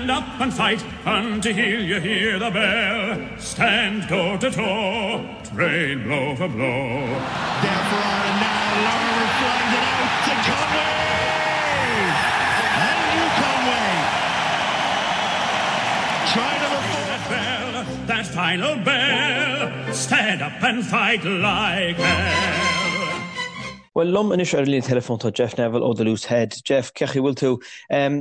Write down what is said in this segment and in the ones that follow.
Stand up and fight until you hear the bell. Stand toe to toe, trade blow for blow. There for Ireland now, Larmour flies it out to Conway! Andrew Conway! Try number four. That bell, that final bell. Stand up and fight like hell. Bhuel, liom anois ar an líne teileafóin tá Jeff Neville ó The Loose Head. Jeff, cén chaoi a bhfuil tú?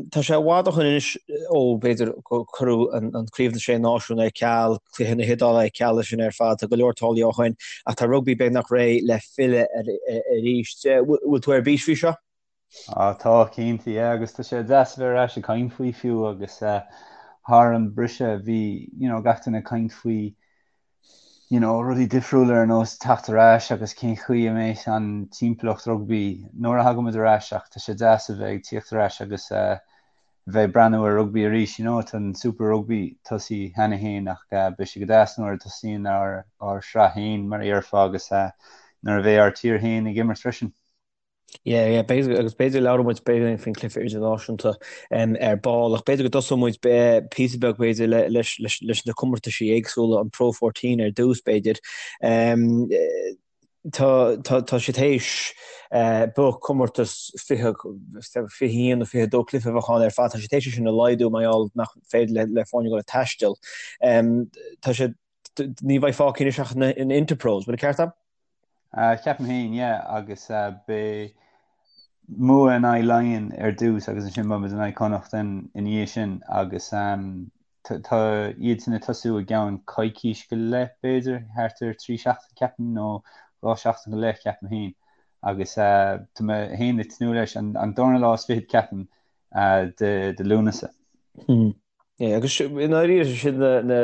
Tá sé i bhfad ó shin anois ó, b'fhéidir, gur cuireadh an Craobh na Sé Náisiún ar ceal, cluiche na hIodáile ar ceal is sin ar fad. Tá go leor tarlaithe ó shin ach tá rugbaí beagnach réidh le filleadh arís. Bhfuil tú ar bís faoi seo? Á tá, cinnte, yeah, agus tá sé deas a bheith ar ais ag caint faoi fiú agus thar an briseadh bhí, you know, gach duine ag caint faoi you know, rudaí difriúla ar nós teacht ar ais agus cén chaoi a mbeidh an timpeallacht rugbaí nuair a thagaimid ar ais ach tá sé deas a bheith ag tíocht ar ais agus eh, bheith ag breathnú ar rugbaí arís, you know, tá an Super Rugby tosaithe cheana féin ach eh, beidh sé go deas nuair a tosaíonn ár, ár sraith féin mar a dhéarfá agus eh, nuair a bheidh ár tír féin ag imirt freisin. Yeah, yeah, b'fhéidir, agus b'fhéidir labhróidh muid b'fhéidir faoin cluiche idirnáisiúnta ar ball, ach b'fhéidir go dtosóidh muid píosa beag b'fhéidir leis, leis, leis na comórtaisí éagsúla, an Pro 14 ar dtús b'fhéidir. Tá, tá, tá siad théis b'fhéidir comórtas 20, 21 nó 22 cluiche a bheadh ann ar fad, tá siad théis é sin a laghdú mar gheall nach féidir le, le foirne dul ag taisteal. Tá siad, ní bheidh fágtha anois ach na Interpros, bhfuil an ceart agam? Ceapaim féin, yeah, agus beidh Mumha in aghaidh Laighean ar dtús agus ansin beidh muid in aghaidh Connacht ina dhiaidh sin agus tá iad sin ag tosú i gceann coicís go leith b'fhéidir, thart ar 3 seachtain ceapaim nó 2 seachtain go leith ceapaim féin agus tá mé féin ag tnúth leis an darna lá is fichead ceapaim de Lúnasa. Yeah, agus i ndáiríre sin na, na,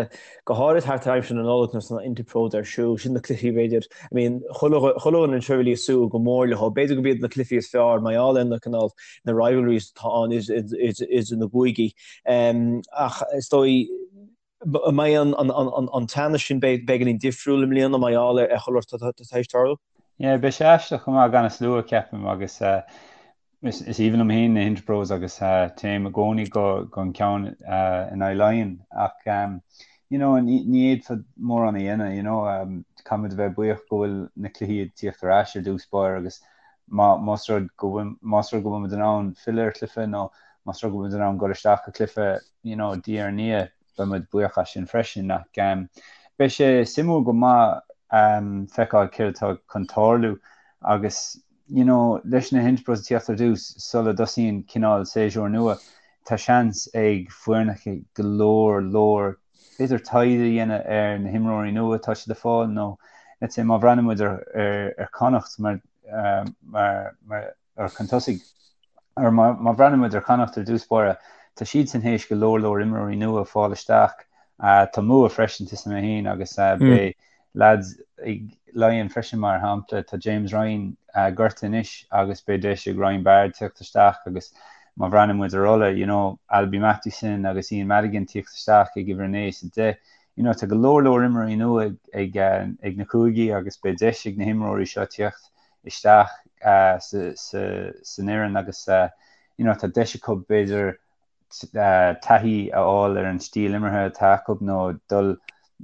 go háirid thart ar aimsir na Nollag nuair atá na Interpros ar siúl, sin na cluichí b'fhéidir, I mean, chuile, chuile dhuine anseo really ag súil go mór leo, b'fhéidir gurb iad na cluichí is fearr mar gheall ar na cineál, na rivalries atá ann idir na gcúigí. Um, ach is dóigh, an mbeidh an, an, an, an, an teannas sin beagáinín difriúil i mbliana mar gheall ar chuile shórt atá tar éis tarlú? Yeah, beidh sé aisteach chomh maith gan an slua, ceapaim, agus uh, Is aoibhinn liom féin na Interpros agus téim i gcónaí go an ceann in aghaidh Laighean ach you know ní fhéadfá mórán a dhéanamh you know caithfimid a bheith buíoch go bhfuil na cluichí ag tíocht ar ais ar dtús báire agus más rud go bhfuil más rud go bhfuil muid in ann filleadh ar chluiche nó más rud go bhfuil muid in ann dul isteach go cluiche you know diaidh ar ndiaidh beidh muid buíoch as sin freisin ach beidh sé suimiúil go maith feiceáil céard atá chun tarlú agus you know, leis na hInterpros ag tíocht ar dtús sula dtosaíonn cineál séasúr nua, tá seans ag foirneacha go leor leor b'fhéidir taighde a dhéanamh ar na himreoirí nua atá siad ag fáil nó let's say má bhreathnaíonn muid ar ar ar Connacht mar mar mar ar chun tosaigh or má má bhreathnaíonn muid ar Chonnacht ar dtús báire, tá siadsan théis go leor leor imreoirí nua a fáil isteach. Tá Mumha freisin tá a fhios agam féin agus beidh Lads ag Laighean freisin mar shampla, tá James Ryan gortaithe anois agus beidh deis ag Ryan Baird tíocht isteach agus má bhreathnaíonn muid ar Ulaidh, you know, Alby Mathewson agus Ian Madigan tíocht isteach ag uimhir 9 is 10, you know, tá go leor leor imreoirí nua ag, ag, ag na cúigí agus beidh deis ag na himreoirí seo tíocht isteach sa, sa, san fhoireann agus, you know, tá deis acu b'fhéidir taithí a fháil ar an stíl imeartha atá acu nó dul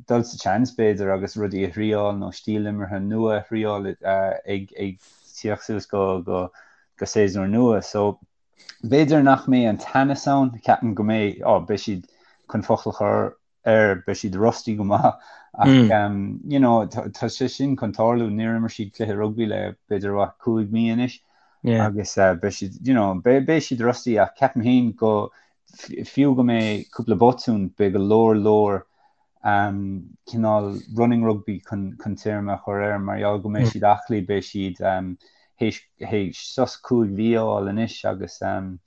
dul sa tseans b'fhéidir agus rudaí a thriáil nó stíl imeartha nua a thriáil ag ag tíocht suas go go go séasúr nua. So b'fhéidir nach mbeidh an teannas ann, ceapaim go mbeidh, ó beidh siad chun focal a chur air, beidh siad rusty go maith ach you know tá sé sin chun tarlú, níor imir siad cluiche rugbaí le b'fhéidir what 5 mí anois agus beidh siad you know beidh siad rusty ach ceapaim féin go fiú go mbeidh cúpla botún beidh go leor leor um, cineál running rugby chun chun téarma a chur air mar gheall go mbeidh siad aclaí beidh siad um, théis théis sos 5 mhí a fháil anois agus um,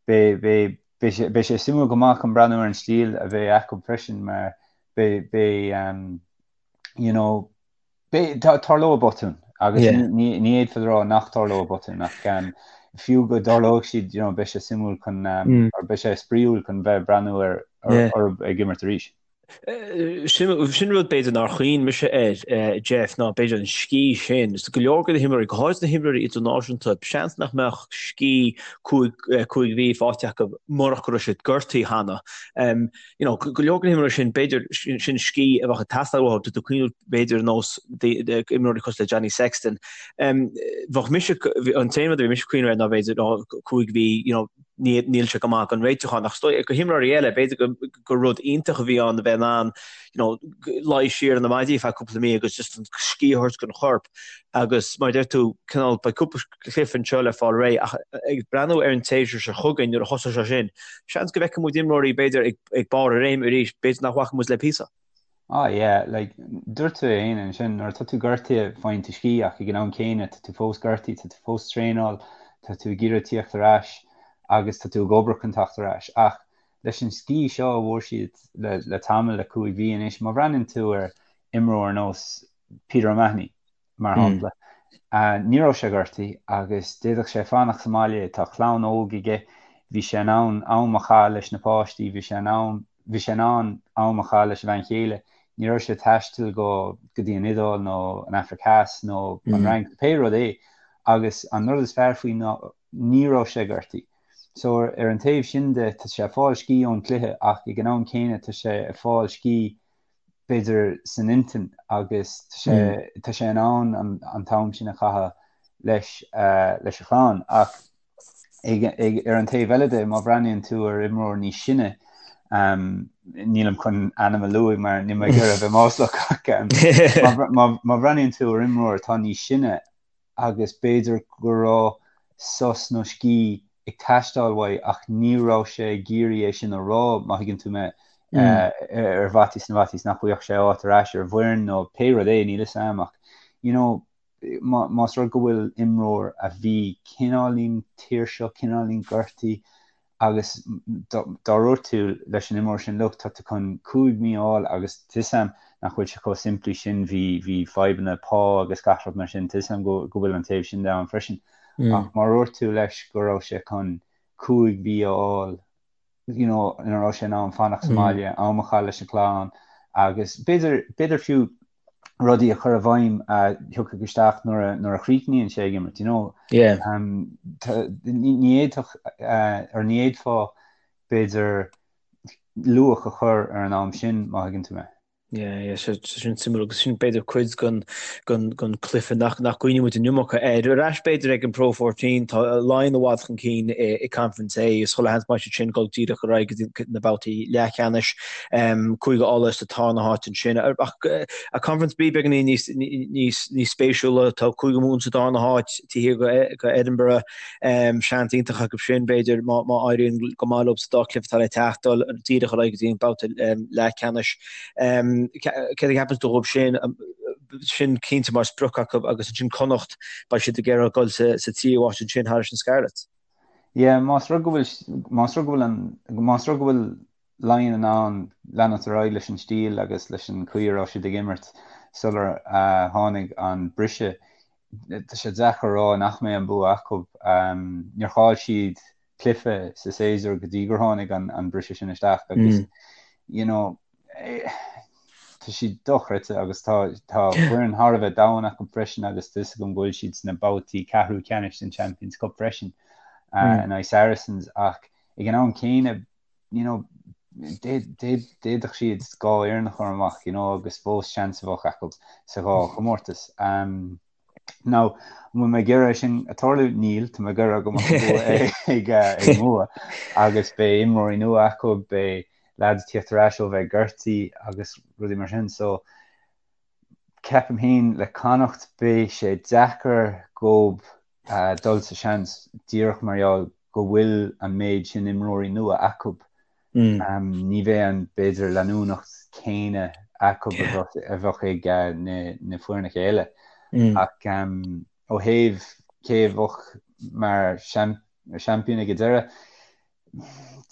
beidh beidh Beidh sé, beidh sé suimiúil go maith chun breathnú ar an stíl a bheidh acu freisin mar beidh, beidh um, you know, beidh, tá, tarlóidh botúin agus yeah. ní, ní, ní fhéadfá a rá nach tarlóidh botúin ach um, fiú go dtarlóidh siad, you know, beidh sé suimiúil chun um, mm. or beidh sé spraíúil chun bheith breathnú ar, ar, yeah. orthu ag imirt arís. Sin rud b'fhéidir nár chuimhnigh mise air, Jeff, ná b'fhéidir an scíth sin. Is go leor de na himreoirí, go háirid na himreoirí idirnáisiúnta, seans nach mbeadh scíth 5 mhí faighte acu murach go raibh siad gortaithe cheana. You know, go leor de na himreoirí sin, b'fhéidir sin scíth a bheadh ag teastáil uathu, tá tú ag cuimhneamh b'fhéidir ar nós imreoirí cosúil le Johnny Sexton. Bheadh mise, an t-aon rud a bhí mise ag cuimhneamh air ná b'fhéidir 5 mhí, you know, níl sé go maith don réitiúchán ach is dóigh do himreoirí eile, b'fhéidir gur rud iontach a bhí ann a bheith in ann you know, luí siar ar na maidí feadh cúpla mí agus just an scíth a thabhairt don chorp agus mar a deir tú, cineál beidh cúpla cluiche anseo le fáil réidh ach ag breathnú ar an tséasúr seo chugainn nuair a thosóidh sé sin, seans go bhfeicfidh muid imreoirí b'fhéidir ag barr a réime arís, b'fhéidir nach bhfaca muid le píosa. Ah yeah, like, dúirt tú é féin ansin, nuair atá tú gortaithe faigheann tú scíth ach ag an am céanna tá tú fós gortaithe, tá tú fós traenáil, tá tú ag iarraidh tíocht ar ais agus tá tú ag obair chun teacht ar ais. Ach leis an scíth seo a bhfuair siad le, le tamall le 5 mhí anois, má bhreathnaíonn tú ar imreoir ar nós Peter O'Mahony, mar shampla. Ní raibh sé gortaithe agus d'fhéadfadh sé fanacht sa mbaile, tá clann óg aige, bhí sé in ann am a chaitheamh leis na páistí, bhí sé in ann, bhí sé in ann am a chaitheamh leis a bhean chéile, ní raibh sé ag taisteal go go dtí an Iodáil nó an Afraic Theas nó an Fhrainc, pé rud é. Agus an rud is fearr faoi ná ní raibh sé gortaithe. So ar an taobh sin de, tá sé ag fáil scíth ón cluiche ach ag an am céanna tá sé ag fáil scíth b'fhéidir san intinn agus tá sé tá sé in ann an t-am sin a chaitheamh leis leis a chlann ach ag ag ar an taobh eile de má bhreathnaíonn tú ar imreoir níos sine um, nílim chun ainm a lua mar níl mé ag iarraidh a bheith maslach ach um, má má má bhreathnaíonn tú ar imreoir atá níos sine agus b'fhéidir go raibh sos nó scíth ag teastáil uaidh ach ní raibh sé ag iarraidh é sin a rá, má thuigeann tú mé, ar fhaitíos na bhfaitíos nach bhfaigheadh sé áit ar ais ar an bhfoireann nó pé rud é, níl 'fhios a'm ach you know más rud go bhfuil imreoir a bhí cineáilín tuirseach, cineáilín gortaithe agus dá ndúirt tú leis an imreoir sin, look, tá tú chun 5 mí a fháil agus tá 'fhios a'm nach bhfuil sé chomh simplí sin, bhí, bhí fadhbanna pá agus gach rud mar sin, tá 'fhios a'm go, go bhfuil an taobh sin de ann freisin. Ach má dhúirt tú leis go raibh sé chun 5 mhí a fháil, you know, ina raibh sé in ann fanacht sa mbaile, am a chaitheamh leis an chlann agus b'fhéidir, b'fhéidir fiú rudaí a chur i bhfeidhm a thiocfadh isteach nuair a, nuair a chríochnaíonn sé ag imirt, you know. Yeah. Um, ní, ní fhéadfadh, uh, or ní fhéadfá b'fhéidir luach a chur ar an am sin má thuigeann tú mé. Yeah, yeah, so, so sin suimiúil agus sin b'fhéidir cuid den, den, den cluiche nach, nach gcuimhníonn muid an iomarca air. Ar ais b'fhéidir ag an Pro 14, tá Laighin i bhfad chun cinn i, i Conference A, is chuile sheans maith siad sin dul díreach ar aghaidh go dtí na babhtaí leathcheannais. Cúige Uladh sa tarna háit ansin. Ach Conference B beagáinín níos níos níos spéisiúla, tá Cúige Mumhan sa darna háit taobh thiar de Edinburgh. Seans iontach acu sin b'fhéidir má má éiríonn go maith leo sa dá chluiche atá le teacht dul díreach ar aghaidh go dtí an babhta leathcheannais. Céard a cheapann tú dhóibh sin? Sin cinnte mar sprioc acu agus ansin Connacht beidh siad ag iarraidh dul sa sa tríú háit ansin thairis na Scarlets. Yeah, más rud go bhfuil más rud go bhfuil an más rud go bhfuil Laighin in ann leanacht ar aghaidh leis an stíl agus leis an chaoi a raibh siad ag imirt sular tháinig an briseadh. Tá sé deacair a rá nach mbeidh an bua acu. Níor chaill siad cluiche sa séasúr go dtí gur tháinig an briseadh sin isteach agus you know tá siad dochreidte agus tá tá foireann thar a bheith domhain acu freisin agus tá 'fhios agam go bhfuil siad sna babhtaí ceathrú ceannais den Champions Cup freisin in aghaidh Saracens ach ag an am céanna you know, d'fhéadfadh siad dhá fhoireann a chur amach, you know, agus fós seans a bheadh acu sa dhá chomórtas. Um, now, an bhfuil mé ag iarraidh sin a tarlú? Níl, tá mé ag iarraidh go mbeadh an bua ag, eh, ag Mumha agus beidh imreoirí nua acu, beidh lads tíocht ar ais ó bheith gortaithe agus rudaí mar sin. So, ceapaim féin le Connacht beidh sé deacair dhóibh dul sa seans díreach mar gheall go bhfuil an méid sin imreoirí nua acu. Ní bheidh an, b'fhéidir, leanúnacht céanna acu a bheadh ag na foirneacha eile. Ach ó thaobh cé a bheadh mar seaimpín ag an deireadh,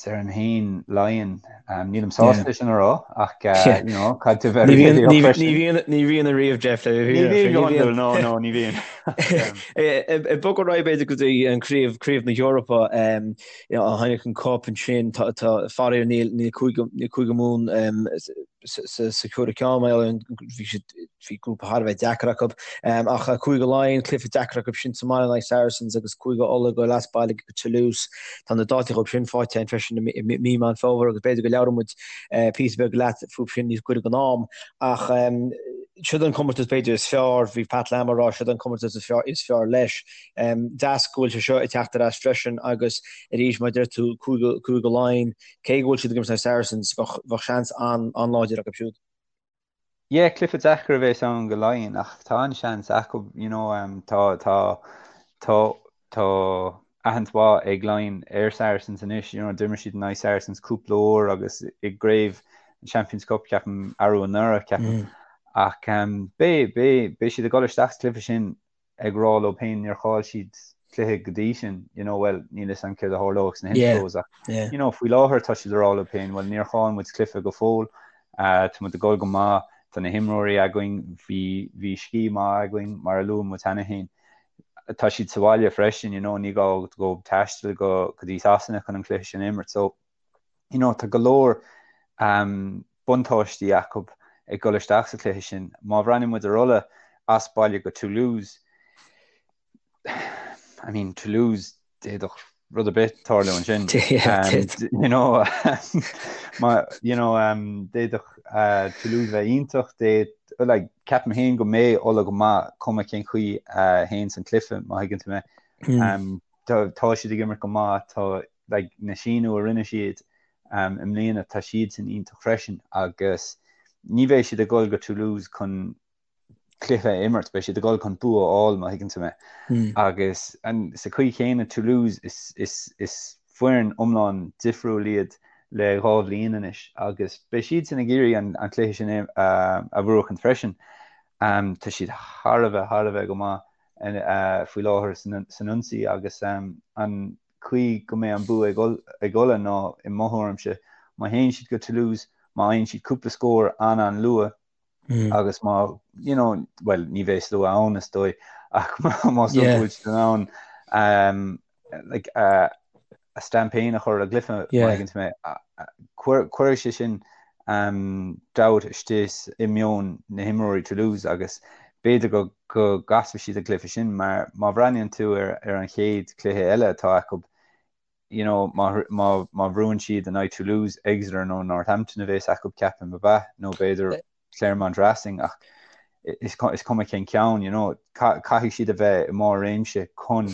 Déarfainn féin Laighean. Nílim sásta é sin a rá ach you know, caithfidh tú bheith Ní bhíonn réalaíoch freisin. ní bhíonn ní bhíonn ariamh Jeff le Ní bhíonn go hiondúil, no, no, ní bhíonn. Ag bogadh ar aghaidh b'fhéidir go dtí an craobh craobh na hEorpa um, you know, an Heineken Cup ansin tá tá faraor níl níl Cúige níl Cúige Mumhan um, sa chúigiú ceann mar gheall ar an bhí siad bhí grúpa thar a bheith deacair acu. Ach Cúige Laighean, cluiche deacair acu sin sa mbaile in aghaidh Saracens agus Cúige Uladh ag dul as baile go Toulouse. Tá na dátaí dhóibh sin faighte againn freisin i mí Meán Fómhair agus b'fhéidir go labhróidh muid píosa beag leat fúthu sin níos gaire don am. Ach siod an comórtas b'fhéidir is fearr, bhí Pat Lam ag rá siod an comórtas is fearr, is fearr leis. Deas go bhfuil sé seo ag teacht ar ais freisin agus arís mar a deir tú Cúige, Cúige Laighean, cé go bhfuil siad ag imirt in aghaidh Saracens, bheadh, bheadh seans an-láidir acu siúd. Yeah, cluiche deacair a bheas ann go Laighean ach tá an-seans acu, you know, tá, tá, tá, tá aithint mhaith ag Laighean ar Saracens anois, you know, d'imir siad in aghaidh Saracens cúpla uair agus i gcraobh an Champions Cup ceapaim arú anuraidh ceapaim. Ach beidh, beidh, beidh siad ag dul isteach sa chluiche sin ag rá leo féin níor chaill siad cluiche go dtí sin, you know, well, níl fhios a'm céard a tharlóidh sna Interpros ach, you know, faoi láthair tá siad ag rá leo féin, well, níor chaill muid cluiche go fóill, uh, tá muid ag dul go maith, tá na himreoirí againn, bhí, bhí scíth maith againn, mar a luaigh muid cheana féin. Tá siad sa bhaile freisin, you know, ní gá dóibh taisteal go, go dtí Sasana chun an cluiche sin a imirt, so, you know, tá go leor um, buntáistí acu ag dul isteach sa chluiche sin. Má bhreathnaíonn muid ar Ulaidh as baile go Toulouse, I mean, Toulouse, d'fhéadfadh rud ar bith tarlú ansin. You know, má, you know, um, d'fhéadfadh uh, Toulouse bheith iontach, d'fhéad, like, ceapaim féin go mbeidh Ulaidh go maith cuma cén chaoi uh, a théann an cluiche, má thuigeann tú mé. Mm. Um, tá, tá siad ag imirt go maith, tá like, na síniú a rinne siad i mbliana, tá siadsan iontach freisin agus ní bheidh siad ag dul go Toulouse chun cluiche a imirt, beidh siad ag dul chun bua a fháil má thuigeann tú mé. Agus sa chaoi chéanna Toulouse is, is, is foireann iomlán difriúil iad le dhá bhliain anois agus beidh siadsan ag iarraidh an, an cluiche sin a, a bhuachan freisin. Um, tá siad thar a bheith, thar a bheith go maith uh, faoi láthair san, san ionsaí agus um, an chaoi go mbeidh an bua ag Ulaidh ná, i mo thuairimse, má théann siad go Toulouse, má fhaigheann siad cúpla scór an-an-luath agus má, you know, bhuel, ní bheidh slua ann is dóigh, ach más rud go bhfuil siad in ann um, like, uh, a stamp féin a chur ar an gcluiche, má thuigeann tú mé, cuirfidh sé sin um, dabht istigh i meon na himreoirí Toulouse agus b'fhéidir go go gcasfaidh siad an cluiche sin mar má bhreathnaíonn tú ar ar an chéad chluiche eile atá acu, you know, má má má bhuann siad in aghaidh Toulouse, Exeter nó Northampton a bheas acu ceapaim ab ea nó b'fhéidir Clermont Racing ach is is cuma cén ceann, you know, caithfidh siad a bheith i mbarr réimse chun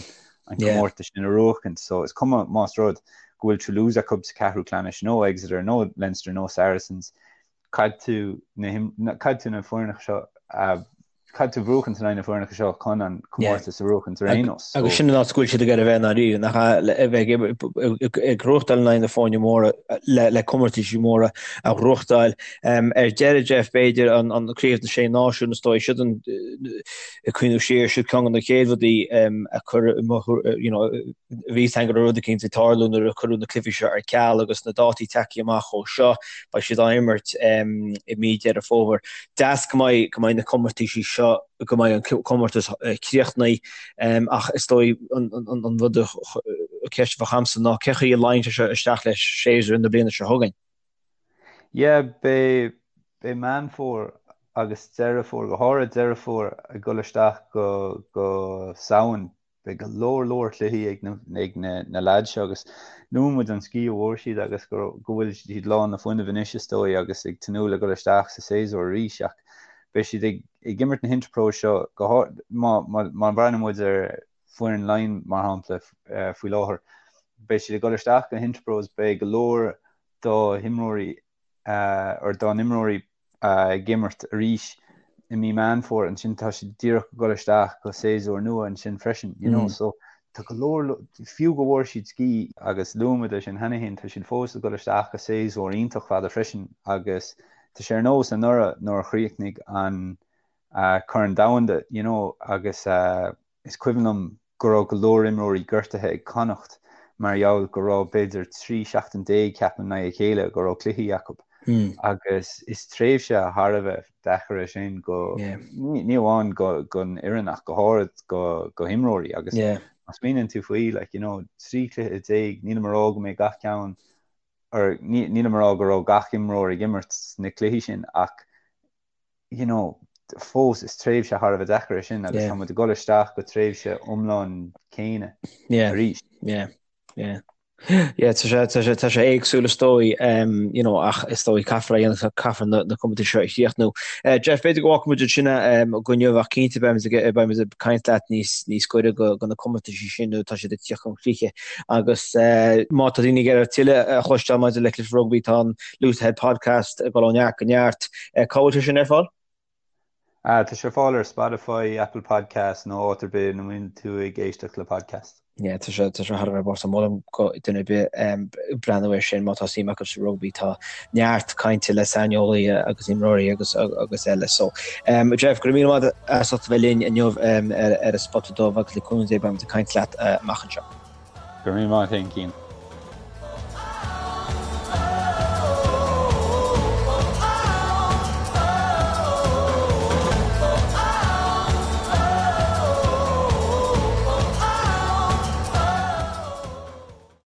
an comórtas sin a bhuachaint. So is cuma más rud go bhfuil Toulouse acu sa ceathrú ceannais nó Exeter nó Leinster nó Saracens, caithfidh tú na caithfidh tú na foirneacha seo a caithfidh tú buachaint in aghaidh na foirneacha seo chun an comórtas a bhuachaint ar aon nós. Agus sin an áit go bhfuil siad ag iarraidh a bheith i ndáiríre, nach ea, a bheith ag gnóthachtáil in aghaidh na foirne móra le comórtaisí móra a ghnóthachtáil. Ar deireadh, Jeff, b'fhéidir an Craobh na Sé Náisiún, is dóigh, siod an ag cuimhneamh siar, siod ceann de na chéad rudaí a cuireadh you know, bhí fhios againn go raibh rud eicínt ag tarlú nuair a cuireadh na cluichí seo ar ceal agus na dátaí tagtha amach ó seo, beidh siad á imirt i mí Deireadh Fómhair. Deas go mbeidh go mbeidh na comórtaisí seo, go mbeidh an comórtas críochnaithe ach is dóigh an rud an cheist a bheadh agamsa ná cén chaoi a luíonn sé seo isteach le séasúr na bliana seo chugainn? Yeah, beidh beidh Meán Fómhair agus Deireadh Fómhair, go háirid Deireadh Fómhair ag dul isteach go go Samhain Beidh go leor leor cluichí ag na ag na na leaids seo agus luaigh muid an scíth a bhfuair siad agus go go bhfuil siad lán le fuinneamh anois is dóigh agus ag tnúth le dul isteach sa séasúr arís ach beidh siad ag ag imirt na hInterpros seo go háir má má má bhreathnaíonn muid ar foireann Laighean mar shampla faoi láthair beidh siad ag dul isteach go hInterpros beidh go leor dá himreoirí or dá n-imreoirí ag imirt arís i mí Meán Fómhair, ansin tá siad díreach ag dul isteach go séasúr nua ansin freisin, you know, so tá go leor, fiú go bhfuair siad scíth, agus luaigh muid é sin cheana féin, tá siad fós ag dul isteach go séasúr iontach fada freisin agus tá sé ar nós anuraidh nuair a chríochnaigh an Corn Domhanda, you know, agus Is cuimhin liom go raibh go leor imreoirí gortaithe ag Connacht mar gheall go raibh b'fhéidir 13 seachtain ceapaim i ndiaidh a chéile go raibh cluichí acu agus is tréimhse thar a bheith deacair é sin go ní amháin don fhoireann ach go háirid go go himreoirí agus má smaoiníonn tú faoi like you know 13 chluiche nílim ag rá go mbeidh gach ceann. Or nílim ag rá go raibh gach imreoir ag imirt sna cluichí sin ach you know, fós is tréimhse thar a bheith deacair é sin agus tá muid ag dul isteach go tréimhse iomlán céanna arís. Yeah, yeah. Yeah, tá sé, tá sé, tá sé éagsúil is dóigh, um, you know, ach is dóigh caithfear a dhéanamh, caithfear na, na comórtais seo a chríochnú. Uh, Jeff, b'fhéidir go bhfágfaidh muid ansin um, go inniu ach cinnte beimid ag, beimid ag caint leat níos, níos gaire go, go na comórtais sin nó tá siad ag tíocht chun críche. Agus uh, má tá daoine ag iarraidh tuilleadh a chloisteáil maidir le cluichí rugbaí tá an Loose Head Podcast ag dul ó neart go neart. Cá bhfuil sé sin ar fáil? Tá sé ar fáil ar Spotify, Apple Podcasts nó áit ar bith ina mbíonn tú ag éisteacht le podcast. Yeah, tá sé tá sé thar a bheith bocht. Molaim go duine ar bith breathnú air sin má tá suim acu sa rugbaí. Tá neart cainte le saineolaithe agus imreoirí agus agus eile. So, um, Jeff, go raibh míle maith as ucht a bheith linn inniu um, ar, ar an Spota Dubh agus le cúnamh Dé beimid ag caint leat uh, amach anseo. Go raibh míle maith agat, Cian.